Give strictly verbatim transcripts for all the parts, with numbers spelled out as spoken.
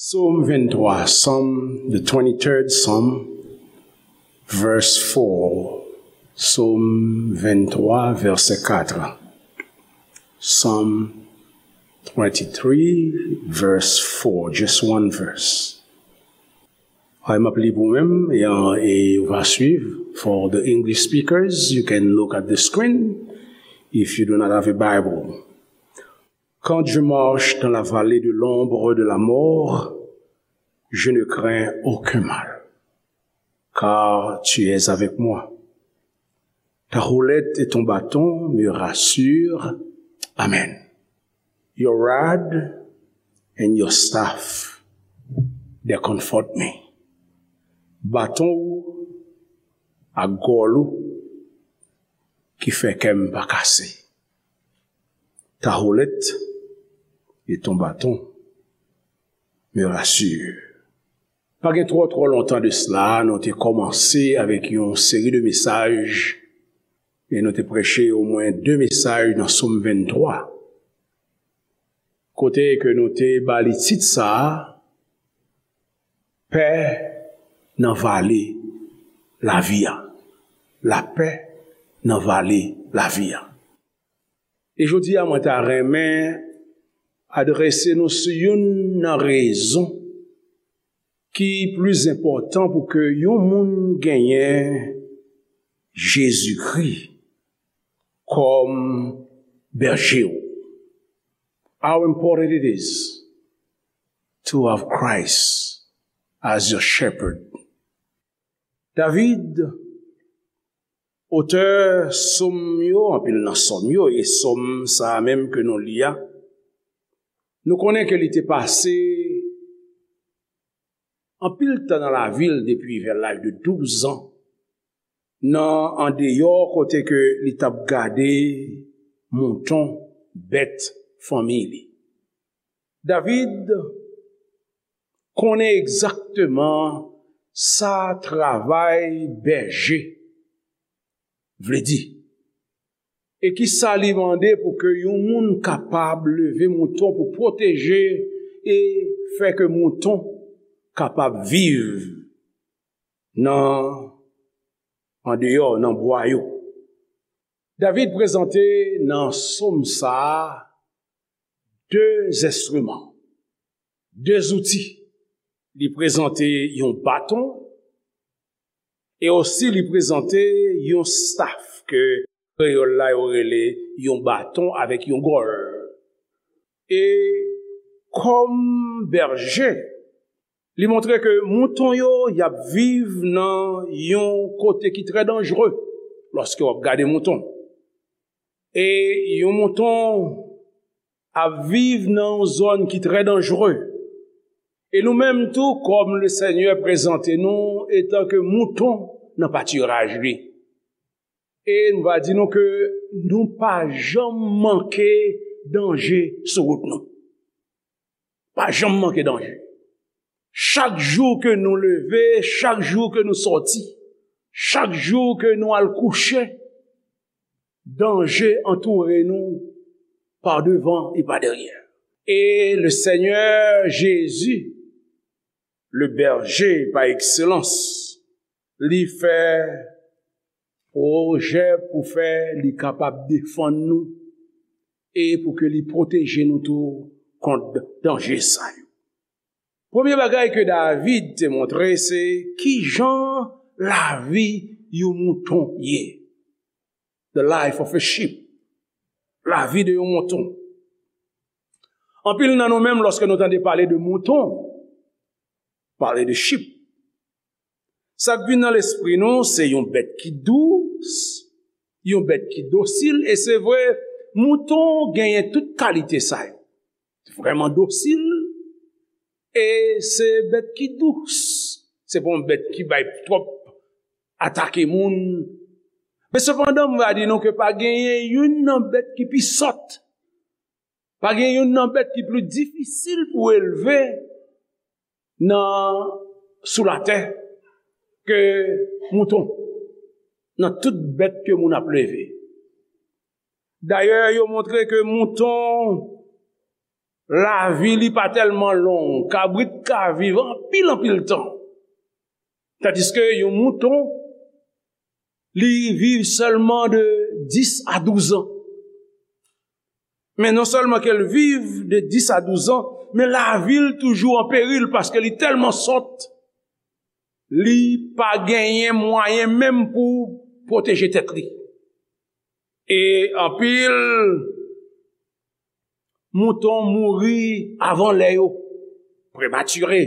Psaume vingt-trois, Psalm, the twenty-third Psalm, verse four. Psaume vingt-trois, verset quatre. Psalm twenty-three, verse four, just one verse. Ay, m ap li pou mwen, e, e ou va swiv. For the English speakers, you can look at the screen if you do not have a Bible. Quand je marche dans la vallée de l'ombre de la mort, je ne crains aucun mal, car tu es avec moi. Ta houlette et ton bâton me rassurent. Amen. Your rod and your staff, they comfort me. Baton ou ak gòl ou ki fè kè m pa kase. Ta houlette et ton bâton me rassurent. Pa gen twò, twò lontan de sila, nou te kòmanse avèk yon seri de mesaj, e nou te preche omwen de mesaj nan Sòm venntwa, kote ke nou te ba li tit sa a, Pè nan vale lavi a. Lapè nan vale lavi a. E jodi a, mwen ta renmen adrese nou sou youn nan rezon ki plis enpòtan pou ke yon moun genyen Jezikri kòm bèje w. How important it is to have Christ as your shepherd. David, otè sòm yo, anpil nan sòm yo, e sòm sa a menm ke nou li a, nou konnen ke li te pase anpil tan nan lavi l depi vè laj de douz an, nan andeyò kote ke li t ap gade mouton, bèt fanmi li. David konnen egzakteman sa travay bèje vle di. E ki sa li mande pou ke yon moun kapab leve mouton pou pwoteje e fè ke mouton kapab viv nan andeyò, nan bwa yo. David prezante nan sòm sa a de enstriman, de zouti. Li prezante yon baton e osi li prezante yon staf ke kreyòl la yo rele yon baton avèk yon gòl. E kòm bèje, li montre ke mouton yo, y ap viv nan yon kote ki trè danjere lòske w ap gade mouton. E yon mouton ap viv nan yon zòn ki trè danjere. E nou menm tou, kòm Lesenyè prezante nou etanke mouton nan patiraj li. E nou va di nou ke nou pa janm manke danje sou wout nou. Pa janm manke danje. Chak jou ke nou leve, chak jou ke nou sòti, chak jou ke nou al kouche, danje antoure nou pa devan e pa dèyè. E Lesenyè Jezi, le bèje pa ekselans, li fè pwojè pou fè li kapab defann nou e pou ke li pwoteje nou tou kont danje sa yo. Premye bagay ke David te montre, se kijan lavi yon mouton ye. The life of a sheep. Lavi de yon mouton. Anpil nan nou menm, lòske nou tande pale de mouton, pale de sheep, sa k vin nan lespri nou, se yon bèt ki dous, yon bèt ki dosil, e se vre, mouton genyen tout kalite sa yo. Vrèman dosil, e se bèt ki dous. Se pa yon bèt ki bay twòp atake moun. Men sepandan, m va di nou ke pa genyen youn nan bèt ki pi sòt. Pa gen youn nan bèt ki pli difisil pou elve nan, sou latè ke mouton. Nan tout bèt ke moun ap leve. Dayè, yo montre ke mouton Lavi li pa tèlman long. Kabrit ka viv anpil, anpil tan. Tandiske yon mouton, li viv sèlman de dis a douz an. Men non sèlman ke l viv de dis a douz an, men lavi l toujou an peril paske li tèlman sòt, li pa genyen mwayen menm pou pwoteje tèt li. E anpil mouton mouri avan lè yo, prematire,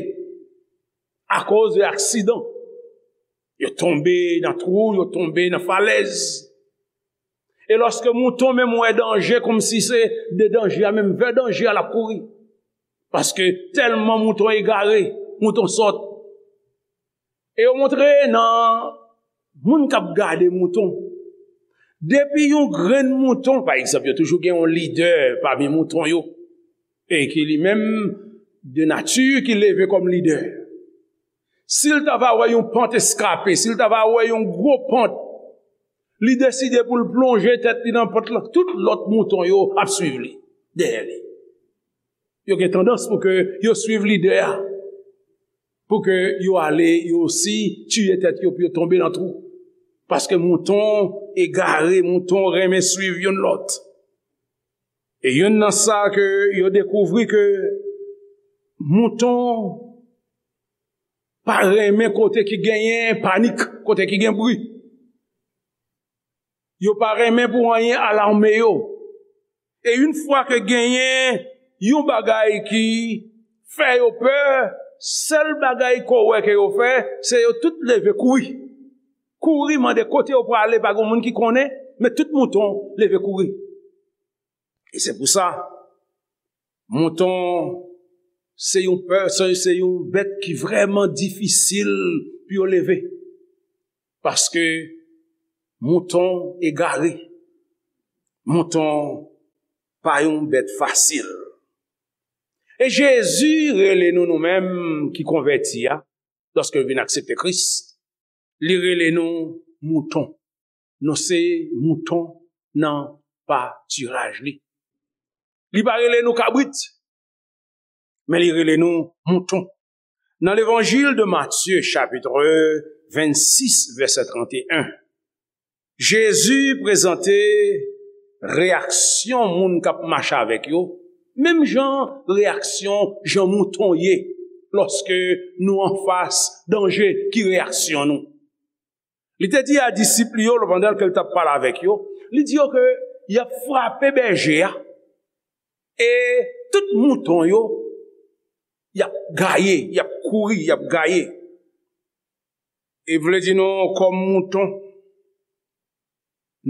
akoz de aksidan. Yo tonbe nan twou, yo tonbe nan falèz. E lòske mouton menm wè danje, kòmsi se de danje a menm, vè danje a, l ap kouri. Paske tèlman mouton egare, mouton sòt. E yo montre nan moun k ap gade mouton. Depi yon grenn mouton, pa egzanp, yo toujou gen yon lidè pami mouton yo, e ki li menm, de nati, ki leve kòm lidè. Si l ta va wè yon pant eskape, si l ta va wè yon gwo pant, li deside pou l plonje tèt li nan pant lan, tout lòt mouton yo ap swiv li, dèyè li. Yo gen tandans pou ke yo swiv lidè a, pou ke yo ale, yo osi tiye tèt yo, pou yo tonbe nan twou. Paske mouton egare, mouton renmen swiv youn lòt. E youn nan sa ke yo dekouvri ke mouton pa renmen kote ki genyen panik, kote ki gen bri. Yo pa renmen pou anyen alame yo. E yon fwa ke genyen yon bagay ki fè yo pè, sèl bagay ke w wè ke yo fè, se yo tout leve kouri. Kouri mande kote yo prale, pa gen moun ki konnen, men tout mouton leve kouri. E se pou sa, mouton se yon pè, se, se yon bèt ki vrèman difisil pou yo leve. Paske mouton egare, mouton pa yon bèt fasil. E Jezi rele nou, nou menm ki konvèti a, lòske nou vin aksepte Kris, li rele nou mouton. Nou se mouton nan patiraj li. Li pa rele nou kabrit, men li rele nou mouton. Nan Levanjil de Matye, chapit vennsis, vèsè trannteyen, Jezi prezante reyaksyon moun k ap mache avèk yo, menm jan reyaksyon jan mouton ye lòske nou anfas danje, ki reyaksyon nou. Li te di a disip li yo, pandan ke l t ap pale avèk yo, li di yo ke y ap frape bèje a, e tout mouton yo, y ap gaye, y ap kouri, y ap gaye. E vle di nou, kòm mouton,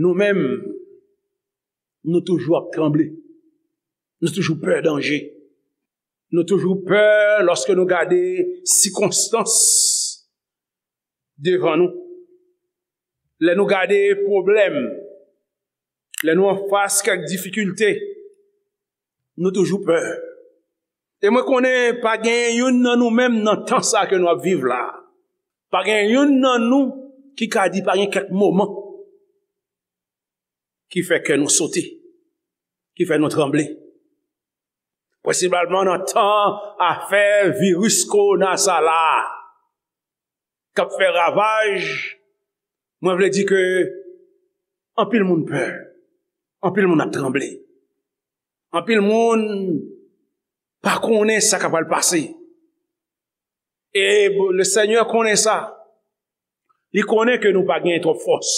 nou menm, nou toujou ap tranble. Nou toujou pè danje. Nou toujou pè lòske nou gade sikonstans devan nou. Lè nou gade pwoblèm, lè nou anfas kèk difikilte, nou toujou pè. E mwen konnen pa gen youn nan nou menm nan tan sa ke nou ap viv la. Pa gen youn nan nou ki ka di pa gen kèk moman ki fè kè nou sote, ki fè nou tranble. Prensipalman nan tan afè viris kowona sa la a, k ap fè ravaj, mwen vle di ke anpil moun pè, anpil moun ap tranble, anpil moun pa konnen sa k ap pral pase. E Lesenyè konnen sa. Li konnen ke nou pa gen twòp fòs.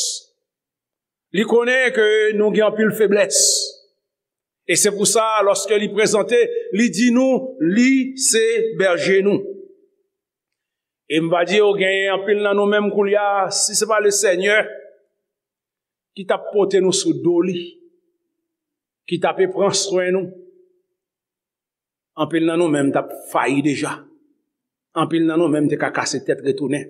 Li konnen ke nou gen anpil feblès. E se pou sa, lòske li prezante, li di nou, li se bèje nou. E m va di yo, genyen anpil nan nou menm koulye a, si se pa Lesenyè ki t ap pote nou sou do li, ki t ape pran swen nou, anpil nan nou menm t ap fayi deja. Anpil nan nou menm te ka kase tèt retounen.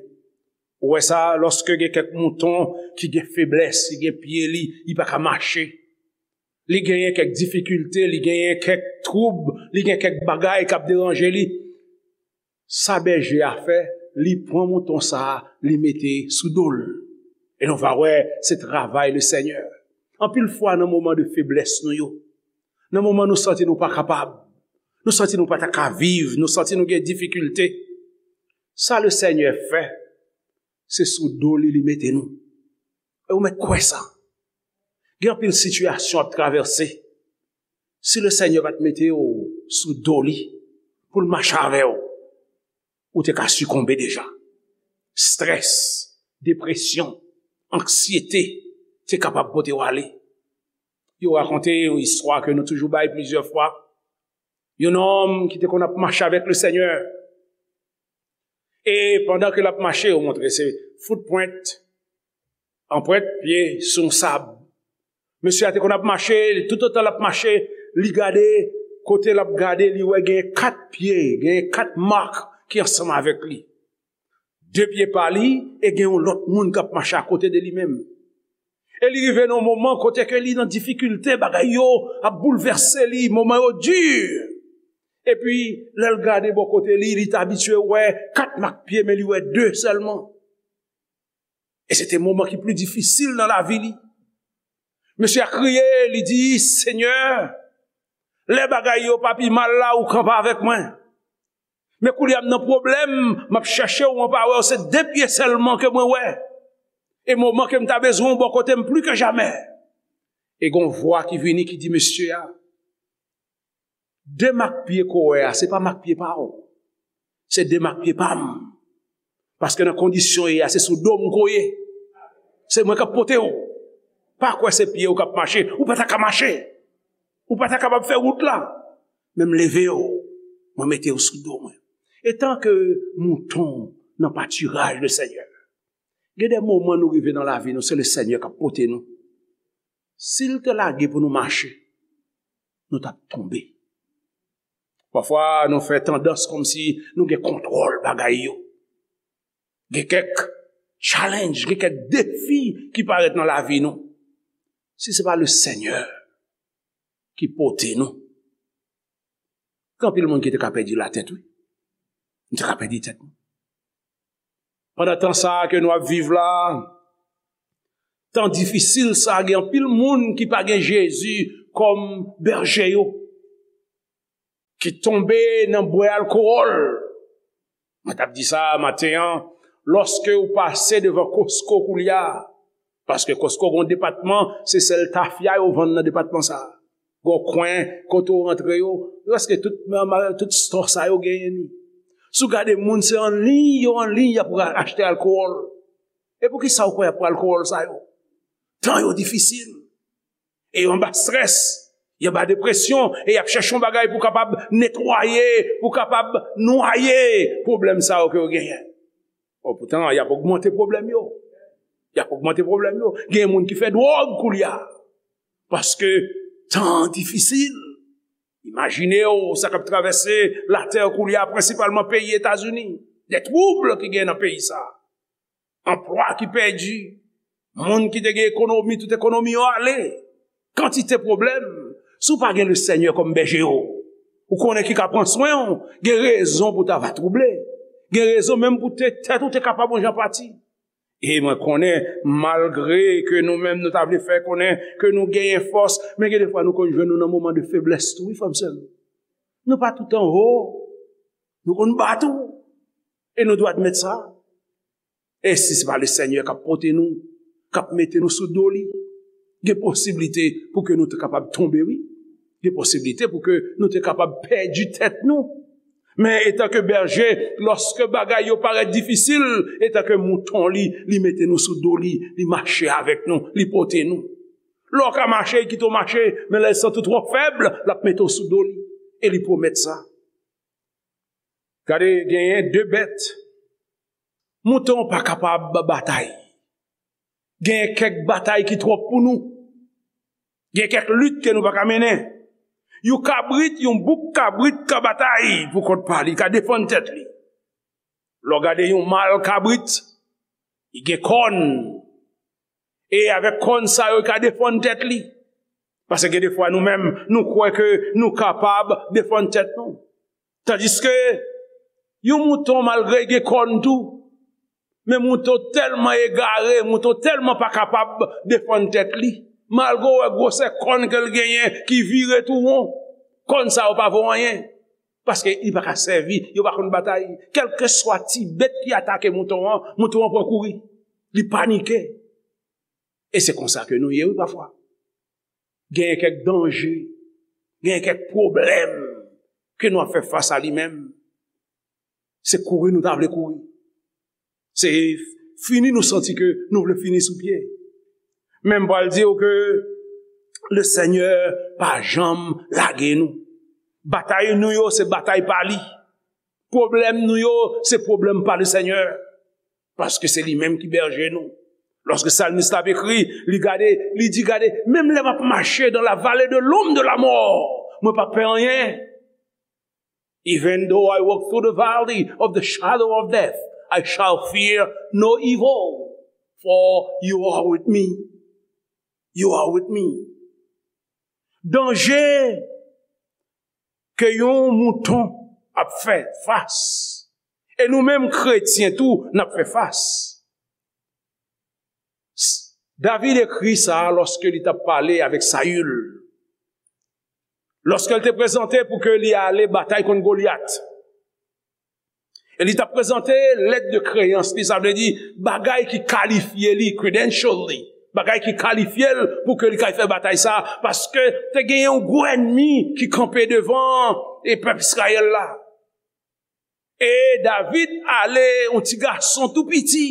Ou wè sa, lòske gen kèk mouton ki gen feblès, ki gen pye li, li pa ka mache. Li genyen kèk difikilte, li genyen kèk twoub, li gen kèk bagay k ap deranje li. Sa bèje a fè, li pran mouton sa a, li mete sou do l. E nou va wè, se travay Lesenyè. Anpil fwa nan moman de feblès nou yo, nan moman nou santi nou pa kapab, Nou santi nou pa ta ka viv, nou santi nou gen difikilte. Sa Lesenyè fè, se sou do li li mete nou. E ou mèt kwè sa. Gen anpil sitiyasyon w ap travèse. Si Lesenyè pa t mete w sou do li pou l mache avè w, ou te ka sikonbe deja. Strès, depresyon, anksyete te kapab pote w ale. Yo rakonte yon istwa ke nou toujou bay plizyè fwa. Yon nonm ki te konn ap mache avèk Lesenyè. E pandan ke l ap mache, yo montre se foutpwent, anprent pye sou yon sab. Mesye a te konn ap mache, toutotan l ap mache, li gade, kote l ap gade, li wè gen kat pye, gen kat mak ki ansanm avèk li. De pye pa li, e gen yon lòt moun k ap mache akote de li menm. E li rive nan yon moman kote ke li nan difikilte, bagay yo ap boulvèse li, moman yo di. Epi, lè l gade bò kote li, li t abitye wè kat mak pye, men li wè de sèlman. E se te moman ki pli difisil nan lavi li. Mesye a kriye, li di, Senyè, lè bagay yo pa pi mal la, ou kanpe avèk mwen. Men koulye a m nan pwoblèm, m ap chèche w, mwen pa wè w, se de pye sèlman ke mwen wè. E moman ke m ta bezwen w bò kote m pli ke jamè. E gon vwa ki vini ki di mesye a, de mak pye ke w wè a, se pa mak pye pa w. Se de mak pye pa m. Paske nan kondisyon w ye a, se sou do m ke w ye. Se mwen k ap pote w. Pa kwè se pye w k ap mache. Ou pa ta ka mache. Ou pa ta kapab fè wout la. Men m leve w. Mwen mete w sou do mwen. Etan ke mouton nan patiraj Lesenyè, gen de moman nou rive nan lavi nou, se Lesenyè k ap pote nou. Si l te lage pou nou mache, nou t ap tonbe. Pafwa, nou fè tandans kòmsi nou gen kontwòl bagay yo. Gen kèk challenge, gen kèk defi ki parèt nan lavi nou. Si se pa Lesenyè ki pote nou, gen anpil moun ki te ka pèdi latèt, wi. Nou te ka pèdi tèt nou. Pandan tan sa a ke nou ap viv la, tan difisil sa a, gen anpil moun ki pa gen Jezi kòm bèje yo, ki tonbe nan bwè alkòl. Mwen t ap di sa maten an, lòske ou pase devan Costco koulye a, paske Costco gon depatman, se sèl tafya yo vann nan depatman sa a. Gon kwen kote w rantre yo, prèske tout, tout store sa yo genyen li. Si w gade moun, se an liy yo an liy y ap achte alkòl. E poukisa w kwè y ap pran alkòl sa yo? Tan yo difisil. E yo anba strès, yo anba depresyon, e y ap chèche yon bagay pou kapab netwaye, pou kapab nwaye pwoblèm sa yo ke yo genyen. Bon, poutan, y ap ogmante pwoblèm yo. Y ap ogmante pwoblèm yo. Gen moun ki fè dwòg koulye a. Paske tan an difisil. Imajine w sa k ap travèse latè koulye a, prensipalman peyi Etazini. De twoub ki gen nan peyi sa a. Anplwa ki pèdi. Moun ki te gen ekonomi, tout ekonomi yo ale. Kantite pwoblèm. Si w pa gen Lesenyè kòm bèje w, ou konnen ki ka pran swen w, gen rezon pou w ta va twouble. Gen rezon menm pou te, tèt ou te kapab yon jan pati. E mwen konnen, malgre ke nou menm nou ta vle fè konnen ke nou genyen fòs, men gen defwa nou konn jwenn nou nan moman de feblès tou, wi, frè m, sè m. Nou pa tout anwo. Nou konn ba tou. E nou dwe admèt sa. E si se pa Lesenyè k ap pote nou, k ap mete nou sou do li, gen posiblite pou ke nou te kapab tonbe, wi. Gen posiblite pou ke nou te kapab pèdi tèt nou. Men etanke bèje, lòske bagay yo parèt difisil, etanke mouton li, li mete nou sou do li, li mache avèk nou, li pote nou. Lè w ka mache, li kite w mache, men lè l santi w twò fèb, l ap mete w sou do li. E li pwomèt sa. Gade, genyen de bèt. Mouton pa kapab batay. Gen kèk batay ki twòp pou nou. Gen kèk lit ke nou pa ka mennen. Yon kabrit, yon bouk kabrit ka batay pou kont pa li, ka defann tèt li. Lè w gade yon mal kabrit, li gen kòn. E avèk kòn sa yo, li ka defann tèt li. Paske gen defwa nou menm, nou kwè ke nou kapab defann tèt nou. Tandiske yon mouton, malgre l gen kòn tou, men mouton tèlman egare, mouton tèlman pa kapab defann tèt li. Malgre w wè gwosè kòn ke l genyen ki vire tou won, kòn sa yo pa vo anyen. Paske li pa ka sèvi, yo pa konn batay. Kèlkeswa ti bèt ki atake mouton an, mouton an pran kouri. Li panike. E se konsa ke nou ye, wi, pafwa. Genyen kèk danje, genyen kèk pwoblèm ke nou ap fè fas a li menm. Se kouri nou ta vle kouri. Se fini nou santi ke nou vle fini sou pye. Men m pral di w ke le Senyè pa janm lage nou. Batay nou yo, se batay pa li. Pwoblèm nou yo, se pwoblèm pa le Senyè. Paske se li menm ki bèje nou. Lòske salmis la ap ekri, li gade, li di, gade, menm lè m ap mache dans la vallée de l'ombre de la mort, mwen pa pè anyen. Even though I walk through the valley of the shadow of death, I shall fear no evil, for you are with me. You are with me. Danje ke yon mouton ap fè fas. E nou menm kretyen tou, n ap fè fas. David ekri sa lòske li t ap pale avèk Sayil. Lòske l te prezante pou ke li ale batay kont Golyat. E li t ap prezante lèt de kreyans li, sa vle di bagay ki kalifye li, credential li, bagay ki kalifye l pou ke li kay fè batay sa, paske te gen yon gwo ènmi ki kanpe devan e pèp Izrayèl la. E David ale, yon ti gason tou piti,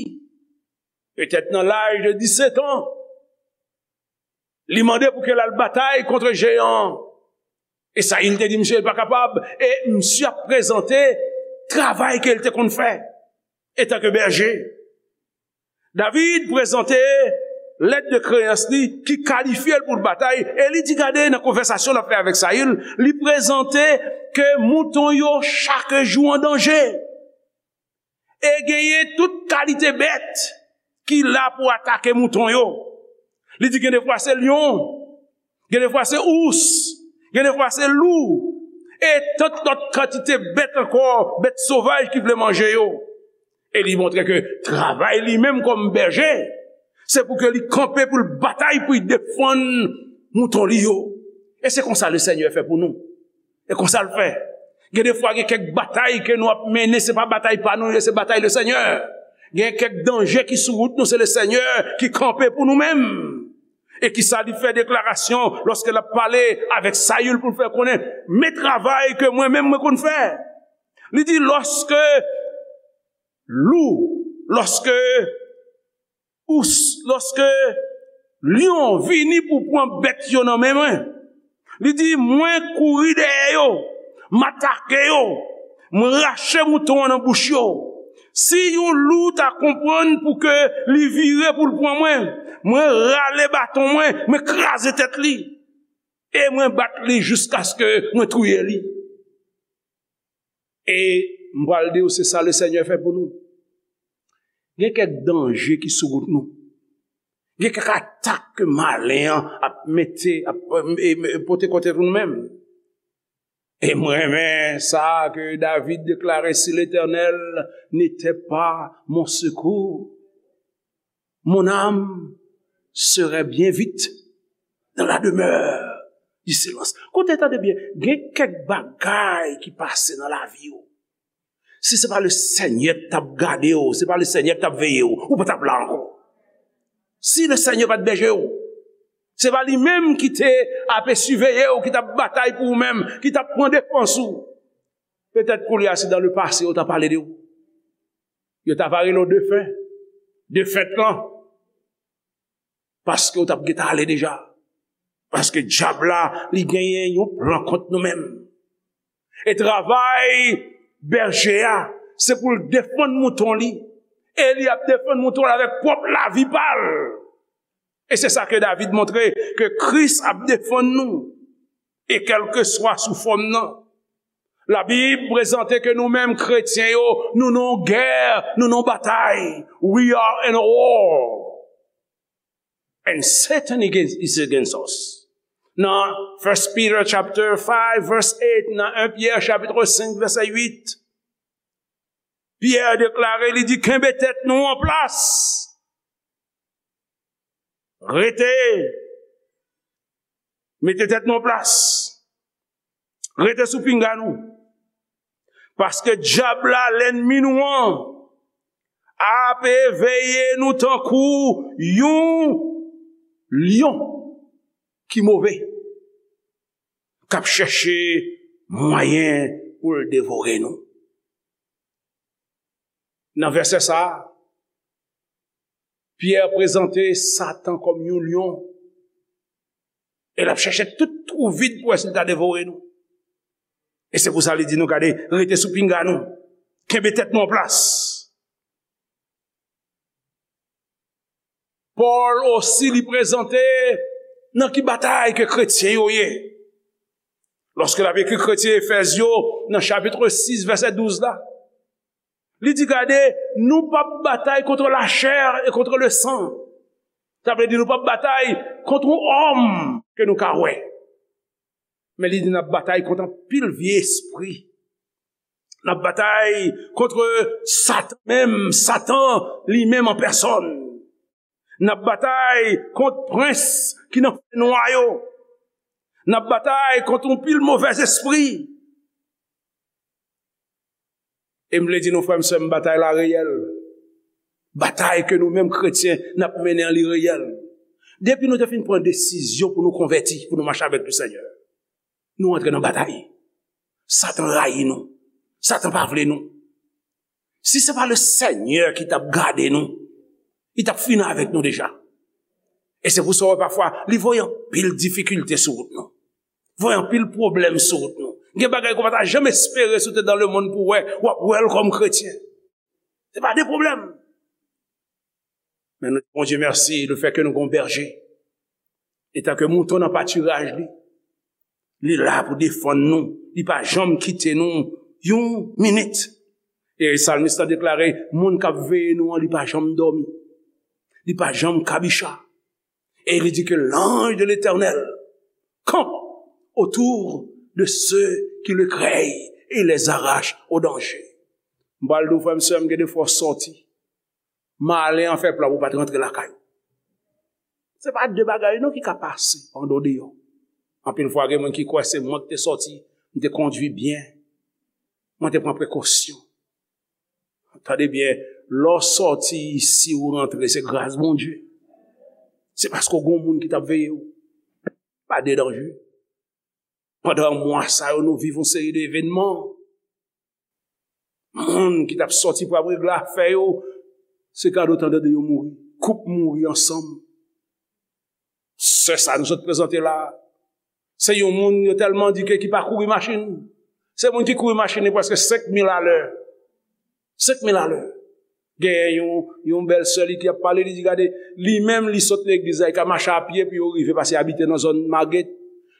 petèt nan laj de disèt an, li mande pou ke l al batay kont jeyan an. E Sayil te di misye l pa kapab, e misye ap prezante travay ke l te konn fè etanke bèje. David prezante lèt de kreyans li ki kalifye l pou l batay, e li di, gade, nan konvèsasyon l ap fè avèk Sayil, li prezante ke mouton yo chak jou an danje. E genyen tout kalite bèt ki la pou atake mouton yo. Li di gen defwa se lyon, gen defwa se ous, gen defwa se lou, e tant lòt kantite bèt ankò, bèt sovaj ki vle manje yo. E li montre ke travay li menm kòm bèje, se pou ke li kanpe pou l batay pou l defann mouton li yo. E se konsa le Senyè fè pou nou. E konsa l fè. Gen defwa gen kèk batay ke nou ap mennen, se pa batay pa nou, se batay le Senyè. Gen kèk danje ki sou wout nou, se le Senyè ki kanpe pou nou menm. E kisa li fè deklarasyon lòske l ap pale avèk Sayil pou l fè konnen, men travay ke mwen menm mwen konn fè. Li di, lòske lou, lòske ous, lòske lyon vini pou pran bèt yo nan men mwen, li di, mwen kouri dèyè yo, m atake yo, mwen rache mouton an nan bouch yo. Si yon lou ta konprann pou ke li vire pou l pran mwen, mwen rale baton mwen, mwen kraze tèt li, e mwen bat li jiskaske mwen touye li. E m pral di w, se sa le Senyè fè pou nou. Gen kèk danje ki sou wout nou. Gen kèk atak ke malen an ap mete, ap, e, e, pote kont nou menm. E mwen renmen sa ke David deklare, si l'Éternel n'était pas mon secours, mon âme serait bien vite dans la demeure du silence. Koute, tande byen, gen kèk bagay ki pase nan lavi w. Si se pa le Senyè k t ap gade w, se pa le Senyè k t ap veye w, ou pa t ap la ankò. Si le Senyè pa t bèje w, se pa li menm ki te ap siveye w, ki t ap batay pou ou menm, ki t ap pran defans ou, petèt koulye a se dans le passé yo t ap pale de ou. Yo ta va rele w defen. Defèt lan. Paske w t ap gentan ale deja. Paske dyab la, li genyen yon plan kont nou menm. E travay bèje a, se pou l defann mouton li. E li ap defann mouton l avèk pwòp lavi pa l. E se sa ke David montre, ke Kris ap defann nou. E kèlkeswa sou fòm nan. Labib prezante ke nou menm kretyen yo, nou nan yon gè, nou nan yon batay. We are in a war. And Satan against, is against us. Nan First Peter chapter five verse eight, nan en Pyè chapit senk vèsè uit, Pyè deklare, li di, kenbe tèt nou an plas. Rete. Mete tèt nou an plas. Rete sou pinga nou. Paske dyab la, lènmi nou an, ap eveye nou tankou yon lyon ki move, k ap chèche mwayen pou l devore nou. Nan vèsè sa a, Pyè prezante Satan kòm yon lyon, e l ap chèche tout twou vid pou wè si l ka devore nou. E se pou sa li di nou, gade, rete sou pinga nou, kenbe tèt nou an plas. Pòl osi li prezante nan ki batay ke kretyen yo ye. Lòske l ap ekri kretyen Efèz yo, nan chapit sis, vèsè douz la, li di, gade, nou p ap batay kont lachè e kont lesan. Sa vle di nou p ap batay kont yon òm ke nou ka wè. Men li di n ap batay kont anpil vye espri. N ap batay kont Satan menm, Satan li menm an pèsòn. N ap batay kont prens ki nan fènwa yo. N ap batay kont yon pil movèzespri. E m vle di nou, frè m, sè m, batay la reyèl. Batay ke nou menm kretyen n ap mennen an, li reyèl. Depi nou te fin pran desizyon pou nou konvèti, pou nou mache avèk Lesenyè, nou antre nan batay. Satan rayi nou. Satan pa vle nou. Si se pa Lesenyè ki t ap gade nou, li t ap fini avèk nou deja. E se pou sa w wè pafwa, li voye anpil difikilte sou wout nou. Voye anpil pwoblèm sou wout nou. Gen bagay ke w pa ta janm espere si w te dans le monde pou w wè, w ap wè l kòm kretyen. Se pa de pwoblèm. Men nou di Bondye mèsi, lefètke nou gen yon bèje. Etanke mouton nan patiraj li, li la pou defann nou. Li pa janm kite nou yon minit. E salmis la deklare, moun k ap veye nou an, li pa janm dòmi. Li pa janm kabicha. Et il dit que l'ange de l'Éternel campe autour de ceux qui le craignent et les arrache au danger. M pral di w, frè m, sè m, gen de fwa w sòti, malen an fè plan pou w pa t rantre lakay ou. Se pa de bagay non ki ka pase pandan w deyò. Anpil fwa gen moun ki kwè se mwen ki te sòti, m te kondui byen, mwen te pran prekosyon. Tande byen, lè w sòti isi ou rantre, se gras Bondye. Se paske w gen yon moun ki t ap veye w. Pa de danje. Pandan mwa sa yo, nou viv yon seri de evènman. Moun ki t ap sòti pou ap regle afè yo, se kado tande yo mouri. Koup mouri ansanm. Sè sa nou sot prezante la, se yon moun yo tèlman di ke ki pa kouri machin. Se moun ki kouri machin li prèske senk mil alè. Senk mil alè. Genyen yon, yon bèl sè li ki ap pale, li di, gade, li menm li sot legliz la, li ka mache a pye pou yo rive pase abite nan zòn Maget.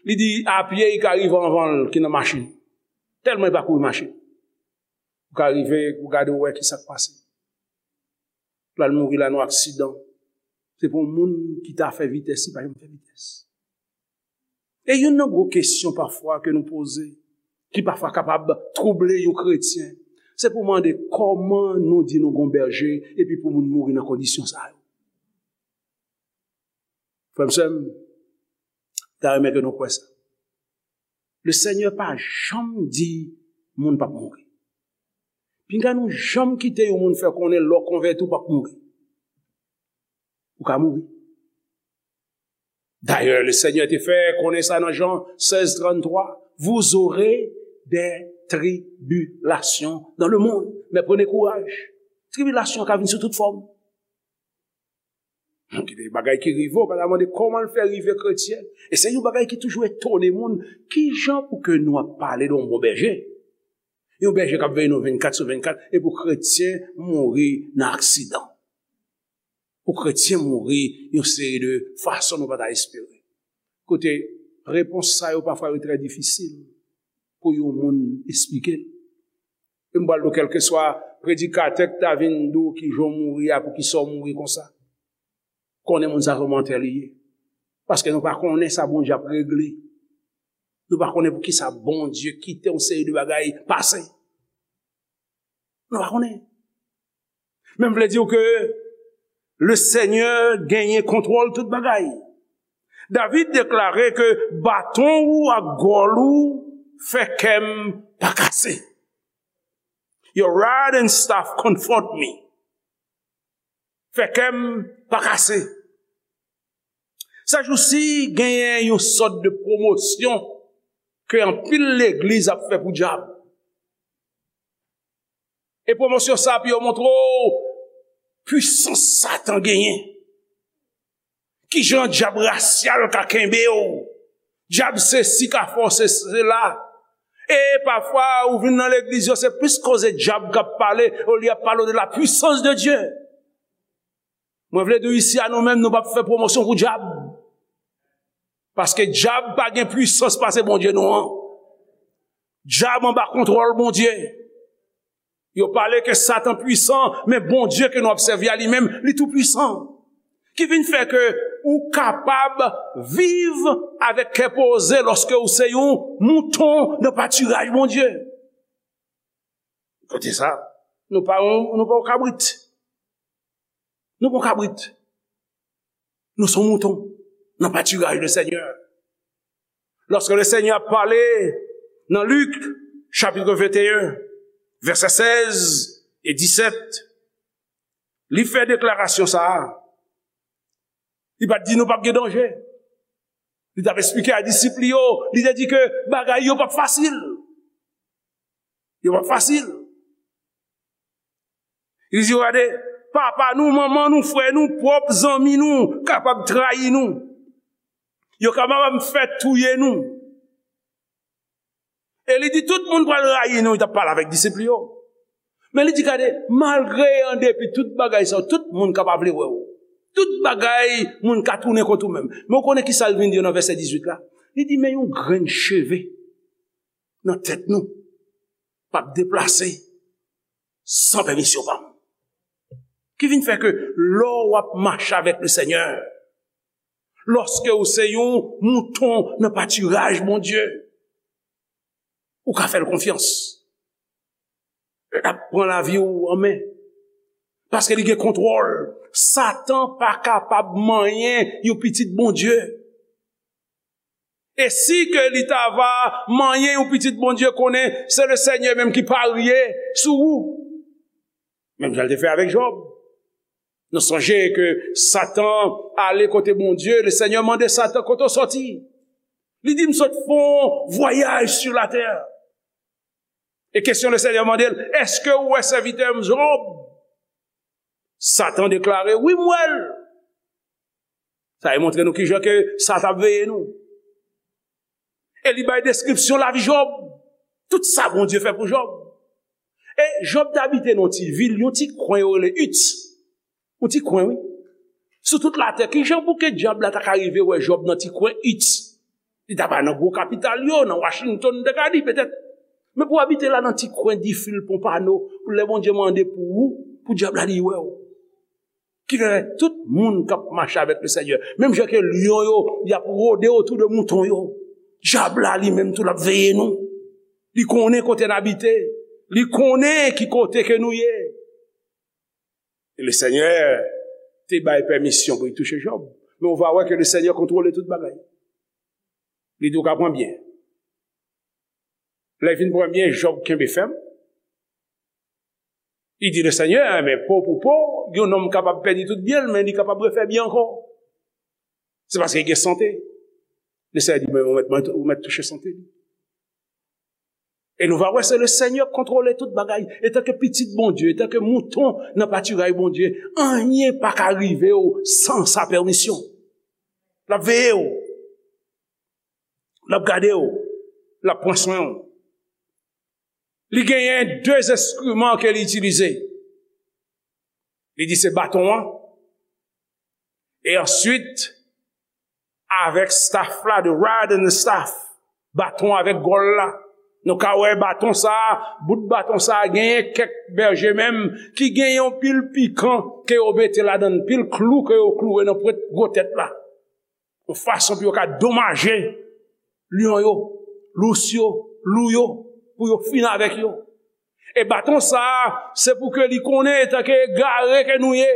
Li di, a pye, li ka rive anvan l ki nan machin. Tèlman li pa kouri machin. Ou ka rive, ou gade, ou wè ki sa k pase. L al mouri la nan aksidan. Se pou moun ki ta fè vitès, li pa janm fè vitès. E youn nan gwo kesyon pafwa ke nou poze, ki pafwa kapab twouble yon kretyen, se pou mande kòman nou di nou gon bèje epi pou moun mouri nan kondisyon sa yo. Frè m, sè m, ta renmen ke nou kwè sa. Lesenyè pa janm di moun p ap mouri. Pinga nou janm kite yon moun fè konnen lè w konvèti w p ap mouri. Ou ka mouri. Dayè, Lesenyè te fè konnen sa nan Jan sèz tranntwa, vous aurez des tribulations dans le monde, mais prenez courage. Tribilasyon ka vin sou tout fòm. Gen bagay ki rive w, pa ta mande kòman l fè rive kretyen. E se yon bagay ki toujou etone moun. Kijan pou ke nou ap pale de yon bon bèje? Yon bèje k ap veye nou vennkat sou vennkat, e pou kretyen mouri nan aksidan. Pou kretyen mouri yon seri de fason nou pa ta espere. Kote, repons sa yo pafwa yo trè difisil pou yon moun esplike l. E m pral di w, kèlkeswa predikatè k ta vin di w kijan w mouri a, poukisa w mouri konsa, konnen moun sa se yon mantè li ye. Paske nou pa konnen sa Bondye ap regle. Nou pa konnen poukisa Bondye kite yon seri de bagay pase. Nou pa konnen. Men m vle di w ke Lesenyè genyen kontwòl tout bagay. David deklare ke baton ou ak gòl ou fè kè m pa kase. Your rod and staff comfort me. Fè kè m pa kase. Sèjousi, genyen yon sòt de pwomosyon ke anpil legliz ap fè pou dyab. E pwomosyon sa pou yo montre w pwisans Satan genyen. Kijan dyab rasyal ka kenbe w? Dyab sesi ka fè w se, sela. E pafwa, ou vin nan legliz yo, se plis koze dyab k ap pale, olye ap pale de la puissance de Dieu. Mwen vle di w isi a nou menm, nou p ap fè pwomosyon pou dyab. Paske dyab pa gen pwisans pase Bondye nou an. Dyab anba kontwòl Bondye. Yo pale ke Satan pwisan, men Bondye ke nou ap sèvi a li menm, li tou pwisan. Ki vin fè ke ou kapab viv avèk kè poze lòske ou se yon mouton nan patiraj Bondye. Kote sa, nou pa yon, nou pa yon kabrit. Nou pa yon kabrit. Nou se yon mouton nan patiraj le Senyè. Lòske le Senyè ap pale nan Lik, chapit venteyen, vèsè sèz e disèt, li fè deklarasyon sa a. Li pa t di nou p ap gen danje. Li t ap esplike a disip li yo, li te di ke bagay yo p ap fasil. Yo p ap fasil. Li di, gade, papa nou, manman nou, frè nou, pwòp zanmi nou kapab trayi nou. Yo kapab fè touye nou. E li di, tout moun pral rayi nou, li t ap pale avèk disip li yo. Men li di, gade, malgre an depi tout bagay sa yo, tout moun ka pa vle wè w. Tout bagay, moun ka tounen kont ou menm. Men w konnen ki sa l vin di yo nan vèsè dizuit la? Li di, men yon grenn cheve nan tèt nou p ap deplase san pèmisyon pa m. Ki vin fè ke lè w ap mache avèk le Senyè, lòske ou se yon mouton nan patiraj Bondye, ou ka fè l konfyans. L ap pran lavi w an men. Paske li gen kontwòl. Satan pa kapab manyen yon pitit Bondye. E si ke li ta va manyen yon pitit Bondye, konnen se le Senyè menm ki parye sou ou. Menm jan l te fè avèk Jòb. Nou sonje ke Satan ale kote Bondye, le Senyè mande Satan, kote w sòti? Li di, m sot fè yon vwayaj sou latè. E kesyon le Senyè mande l, èske ou wè sèvitè m Jòb? Satan deklare, wi, m wè l. Sa e montre nou kijan ke sa t ap veye nou. E li bay deskripsyon lavi Jòb. Tout sa Bondye fè pou Jòb. E Jòb te abite nan yon ti vil, yon ti kwen yo rele It. Yon ti kwen, wi. Sou tout latè, kijan pou ke dyab la ta ka rive wè Jòb nan ti kwen It? Li ta pa nan gwo kapital yo, nan Washington, m te ka di petèt. Men pou w abite la nan ti kwen Difil Ponpano, pou lè Bondye mande pou ou, pou dyab la li wè w. Ki fè tout moun k ap mache avèk le Senyè, menm jan ke lyon yo, y ap wode otou de mouton yo, dyab la li menm tou l ap veye nou. Li konnen kote n abite. Li konnen ki kote ke nou ye. E le Senyè te bay pèmisyon pou li touche Jòb. Men ou va wè ke le Senyè kontwole tout bagay. Li di w ka pran byen. Lè l fin pran byen, Jòb kenbe fèm. Li di le Senyè, men po pou po, yon nonm kapab pèdi tout byen l, men li kapab refè byen ankò. Se paske li gen sante. Le Senyè di, men ou mèt, ou mèt touche sante li. E nou va wè se le Senyè k kontwole tout bagay. Etanke pitit Bondye, etanke mouton nan patiraj Bondye, anyen pa ka rive w san sa pèmisyon. L ap veye w. L ap gade w. L ap pran swen w. Li genyen de enstriman ke li itilize. Li di se baton an. E answit, avèk staff la, the rod and the staff, baton avèk gòl la. Nou ka wè baton sa a, bout baton sa a, genyen kèk bèje menm ki genyen yon pil pikan ke yo mete ladan l, pil klou ke yo klouwe nan pwent gwo tèt la. Yon fason pou yo ka domaje lyon yo, lous yo, lou yo, pou yo fini avèk yo. E baton sa a, se pou ke li konnen etanke egare ke nou ye.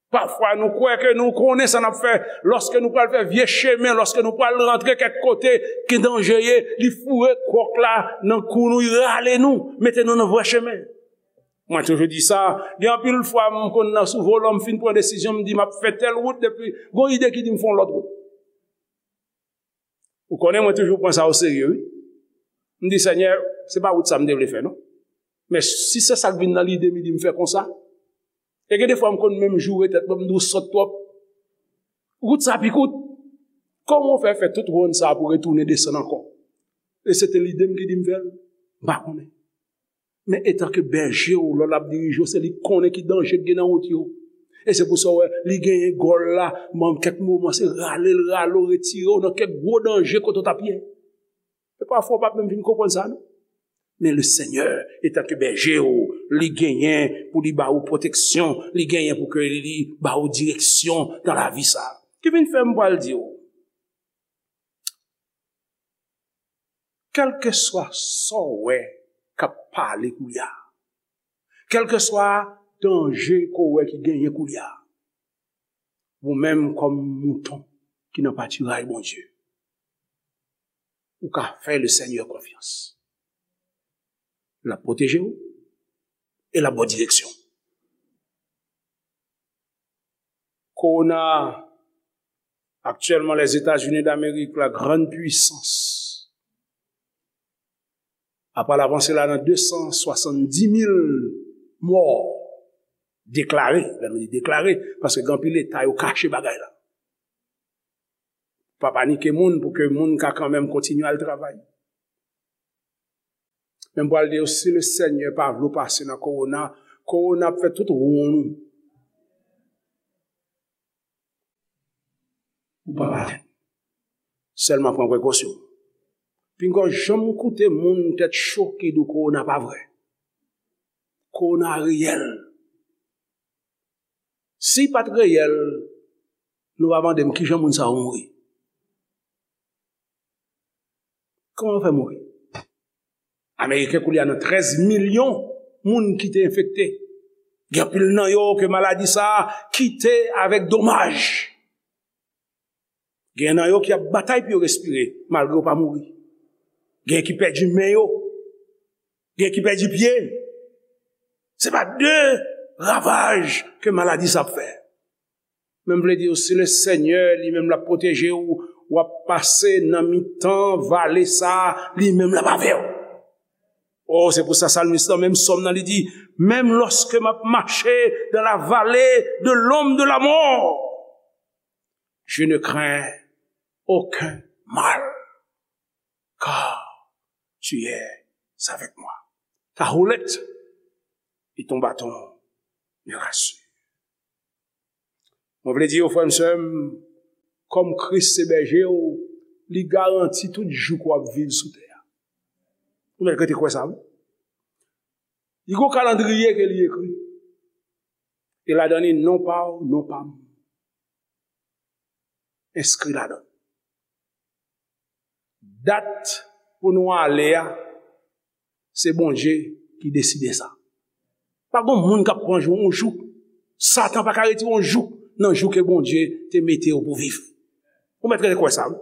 Pafwa, nou kwè ke nou konnen sa n ap fè. Lòske nou pral fè vye chemen, lòske nou pral rantre kèk kote ki danje ye, li foure kwòk la nan kou nou, li rale nou, mete nou nan vrè chemen. Mwen toujou di sa, gen anpil fwa m konn nan sou volan, m fin pran desizyon, m di m ap fè tèl wout, depi gon ide ki di m fè yon lòt wout. Ou konnen mwen toujou pran sa oserye, wi. M di, Senyè, se pa wout sa m te vle fè, non. Men si se sa k vin nan lide m, li di m fè konsa. E gen defwa m konn menm joure tèt mwen, m di w sòt twòp. Wout sa pi kout. Kòman w fè fè tout wonn sa pou retounen desann ankò? E se te lide m ki di m fè l. M pa konnen. Men etanke bèje w, lè l ap dirije w, se li k konnen ki danje k gen nan wout yo. E se pou sa w wè, li genyen gòl la, men kèk moman se rale l, rale w, retire w nan kèk gwo danje kote w t ap ye. E pafwa w p ap menm vin konprann sa, non. Men le Senyè, etanke bèje w, li genyen pou li ba ou pwoteksyon, li genyen pou ke li ba ou direksyon nan lavi sa. Ki vin fè m pral di w, kèlkeswa sa w wè k ap pale koulye a, kèlkeswa danje ke w wè ki genyen koulye a, ou menm kòm mouton ki nan patiray Bondye, ou ka fè le Senyè konfyans. L ap pwoteje w e l ap ba w direksyon. Kowona, aktyèlman, Lèzetazini Damerik, la grande puissance, apral avanse la nan de san swasanndis mil mò deklare. Lè nou di deklare, paske gen anpil eta yo kache bagay la. Pa panike moun pou ke moun ka kanmenm kontinye al travay. Men m pral di yo, si le Senyè pa vle w pase nan kowona, kowona ap fè tout wonn ou. Ou p ap atenn. Sèlman pran prekosyon. Pinga w janm koute moun tèt cho ki di w kowona pa vrè. Kowona reyèl. Si l pa t reyèl, nou va mande m kijan moun sa yo mouri. Kòman yo fè mouri? Ameriken koulye a nan trèz milyon moun ki te enfekte. Gen anpil nan yo ke maladi sa a kite avèk domaj. Gen nan yo ki ap batay pou yo respire, malgre yo pa mouri. Gen ki pèdi men yo. Gen ki pèdi pye. Se pa de ravaj ke maladi sa ap fè. Men m vle di w, si le Senyè li menm l ap pwoteje w, w ap pase nan mitan vale sa a, li menm l ap avè w. O, se pou sa salmis lan, menm sòm nan, li di, même lorsque m ap mache dans la vallée de l'ombre de la mort, je ne crains aucun mal, car tu es avec moi. Ta houlette et ton bâton me rassurent. Mwen vle di yo, frè m, sè m, kòm Kris se bèje w, li garanti tout jou ke w ap viv sou tè a. Ou mèt rete kwè sa, wi. Li gon kalandriye ke li ekri. E ladan li, non pa w, non pa m enskri ladan l. Dat pou nou ale a, se Bondye ki deside sa. Pa gon moun k ap pran jou, yon jou. Satan pa ka retire yon jou nan jou ke Bondye te mete yo pou viv. Ou mèt rete kwè sa, wi.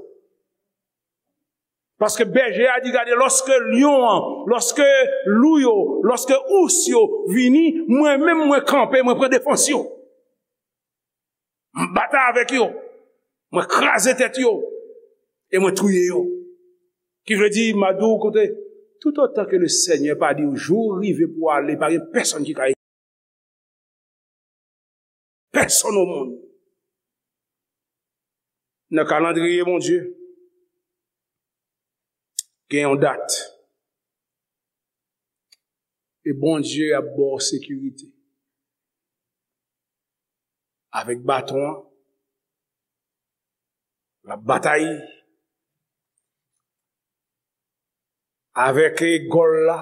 Paske bèje a di, gade, lòske lyon an, lòske lou yo, lòske ous yo vini, mwen menm mwen kanpe, mwen pran defans yo. M batay avèk yo. Mwen kraze tèt yo. E mwen touye yo. Ki vle di, m a di w, koute, toutotan ke le Senyè pa di w jou rive pou w ale, pa gen pèsonn ki ka pèsonn o monn. Nan kalandriye Bondye, gen yon dat. E Bondye ap ba w sekirite. Avèk baton an, l ap batay. Avèk gòl la,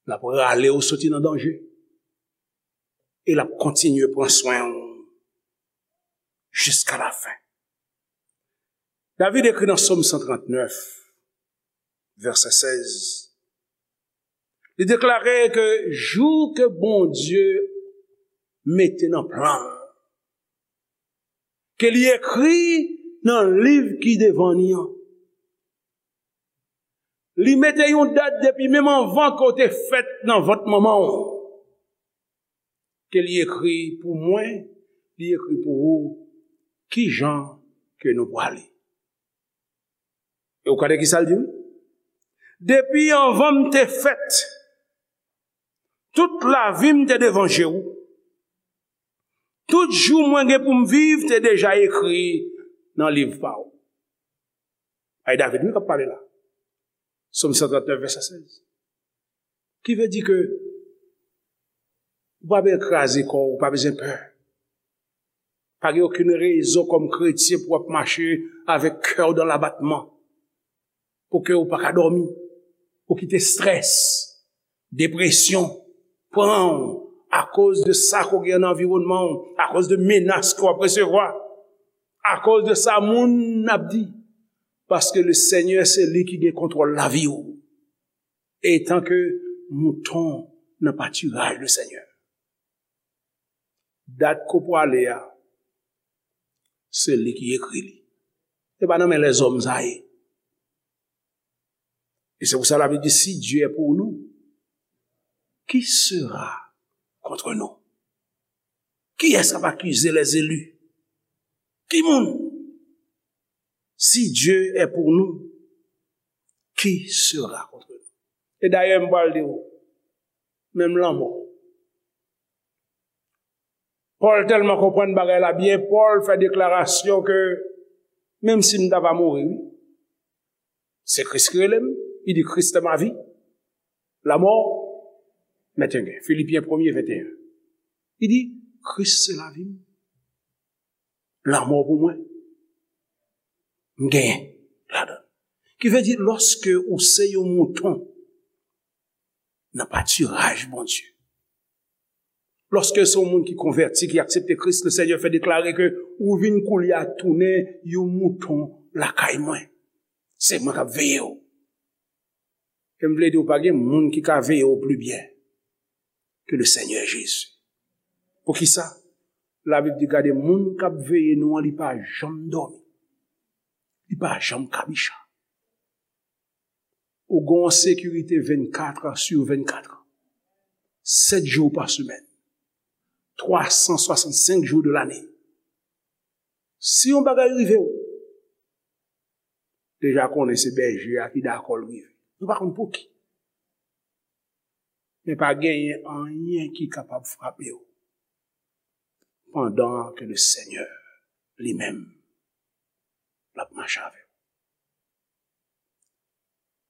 l ap rale w soti nan danje. E l ap kontinye pran swen w jiska lafen. David ekri nan Sòm san trannèf, vèsè sèz. Li deklare ke jou ke Bondye mete nan plan l. Ke li ekri nan liv ki devan ni an. Li mete yon dat depi menm anvan ke w te fèt nan vant manman w. Ke li ekri pou mwen, li ekri pou ou, ki jan ke nou pwale. E ou konnen ki sa l di, wi? Depi anvan m te fèt, tout lavi m te devan je w. Tout jou mwen gen pou m viv te deja ekri nan liv pa w. Ay David, wi, k ap pale la. Sòm san trannèf, vèsè sèz. Ki vle di ke ou pa bezwen kraze kò w, ou pa bezwen pè. Pa gen okenn rezon kòm kretyen pou w ap mache avèk kè w dan labatman, pou ke w pa ka dòmi, ou kite strès, depresyon pran w akoz de sa ke w gen nan anviwònman w, akoz de menas ke w ap resevwa, akoz de sa moun ap di. Paske le Senyè se li ki gen kontwòl lavi w. Etan ke mouton nan patiraj le Senyè. Dat ke w pwale a, se li ki ekri li. Se pa nan men lèzòm sa ye. E se pou sa Labib di, si Dieu est pour nous, qui sera contre nous? Kiyès k ap akize les élus? Ki moun? Si Dieu est pour nous, qui sera contre nous? E dayè, m pral di w, menm lanmò. Pòl tèlman konprann bagay la byen, Pòl fè deklarasyon ke menm si m ta va mouri, wi, se Kris ki rele m, li di, Christ est ma vie, la mort m'est un gain. Filipyen premye venteyen. Li di, Kris se lavi m. Lanmò pou mwen, m genyen ladan l. Ki vle di, lòske ou se yon mouton nan patiraj Bondye, lòske se yon moun ki konvèti, ki aksepte Kris, le Senyè fè deklare ke ou vin koulye a tounen yon mouton lakay mwen. Se mwen k ap veye w. E m vle di w, pa gen moun ki ka veye w pli byen ke le Senyè Jezi. Poukisa? Labib di, gade, moun k ap veye nou an, li pa janm dòmi. Li pa janm kabicha. Ou gen yon sekirite vennkat sur vennkat. Sèt jou pa semèn. Twa san swasannsenk jou de lane. Si yon bagay rive w, deja konnen se bèje a ki dakò l rive. Nou pa konn pou ki. Men pa genyen anyen ki kapab frape w pandan ke le Senyè li menm l ap mache avè w.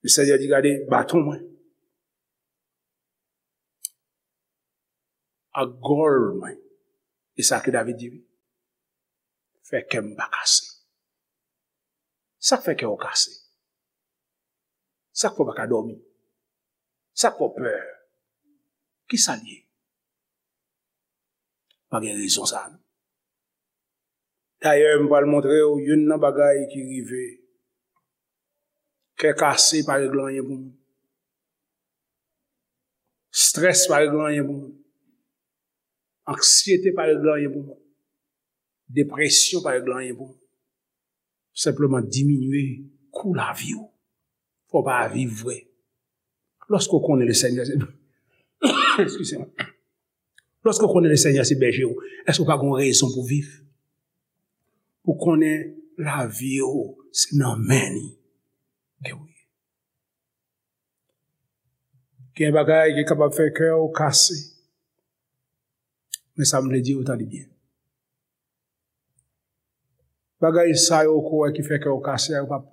Le Senyè di, gade, baton mwen ak gòl mwen. E sa ke David di, wi. Fè kè m pa kase. Sa k fè kè w kase? Sa k fè w pa ka dòmi? Sa k fè w pè? Ki sa l ye? Pa gen rezon sa a, non. Dayè, m pral montre w youn nan bagay ki rive. Kè kase pa regle anyen pou moun. Strès pa regle anyen pou moun. Anksyete pa regle anyen pou moun. Depresyon pa regle anyen pou moun. Senpleman diminye kou lavi w. Fò w pa viv vre. Lòske w konnen le Senyè se, eskize mwen. Lòske w konnen le Senyè se bèje w, èske w pa gen rezon pou viv? Pou konnen lavi w se nan men li ke w ye. Gen bagay ki kapab fè kè w kase. Men sa m vle di w, tande byen. Bagay sa yo ke w wè ki fè kè w kase a, yo p ap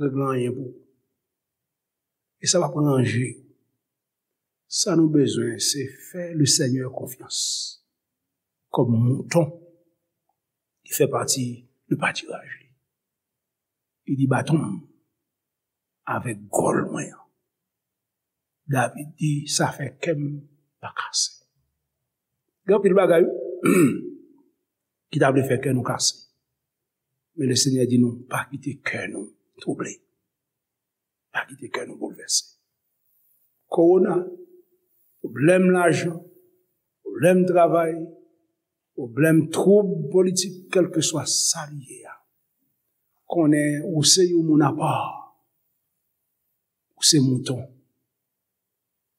regle anyen pou ou. E sa p ap ranje. Sa nou bezwen, se fè le Senyè konfyans kòm mouton ki fè pati de patiraj li. Li di, baton m avèk gòl mwen an. David di, sa fè kè m pa kase. Gen anpil bagay, wi, ki ta vle fè kè nou kase. Men le Senyè di nou, pa kite kè nou twouble. Pa kite kè nou boulvèse. Kowona, pwoblèm lajan, pwoblèm travay, Pwoblèm, twoub politik, kèlkeswa sa li ye a, konnen ou se yon moun apa. Ou se mouton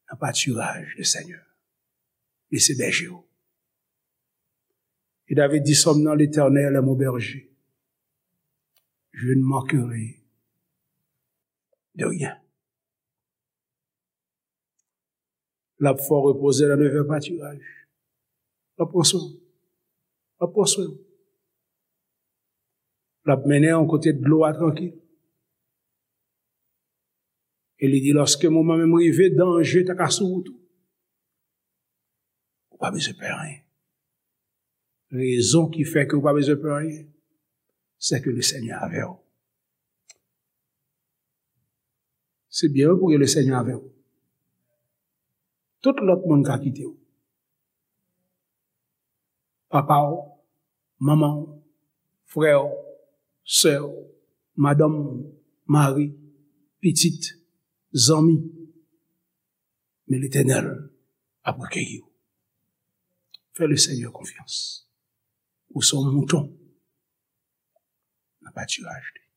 nan patiraj Lesenyè. Li se bèje w. E David di, Sòm nan, L'Éternel est mon berger. Je ne manquerai de rien. L ap fè w repoze nan de vè patiraj. L ap pran swen w. L ap pran swen w. L ap mennen w kote dlo a trankil. E li di, lòske moman menm rive, danje ta ka sou wout ou, ou pa bezwen pè anyen. Rezon ki fè ke ou pa bezwen pè anyen, se ke Lesenyè avè w. Se byen wi pou gen Lesenyè avè w. Tout lòt moun ka kite w. Papa w, manman w, frè w, sè w, madanm w, mari, pitit, zanmi. Men Letènèl ap rekeyi w. Fè Lesenyè konfyans. Ou se yon mouton nan patiraj li.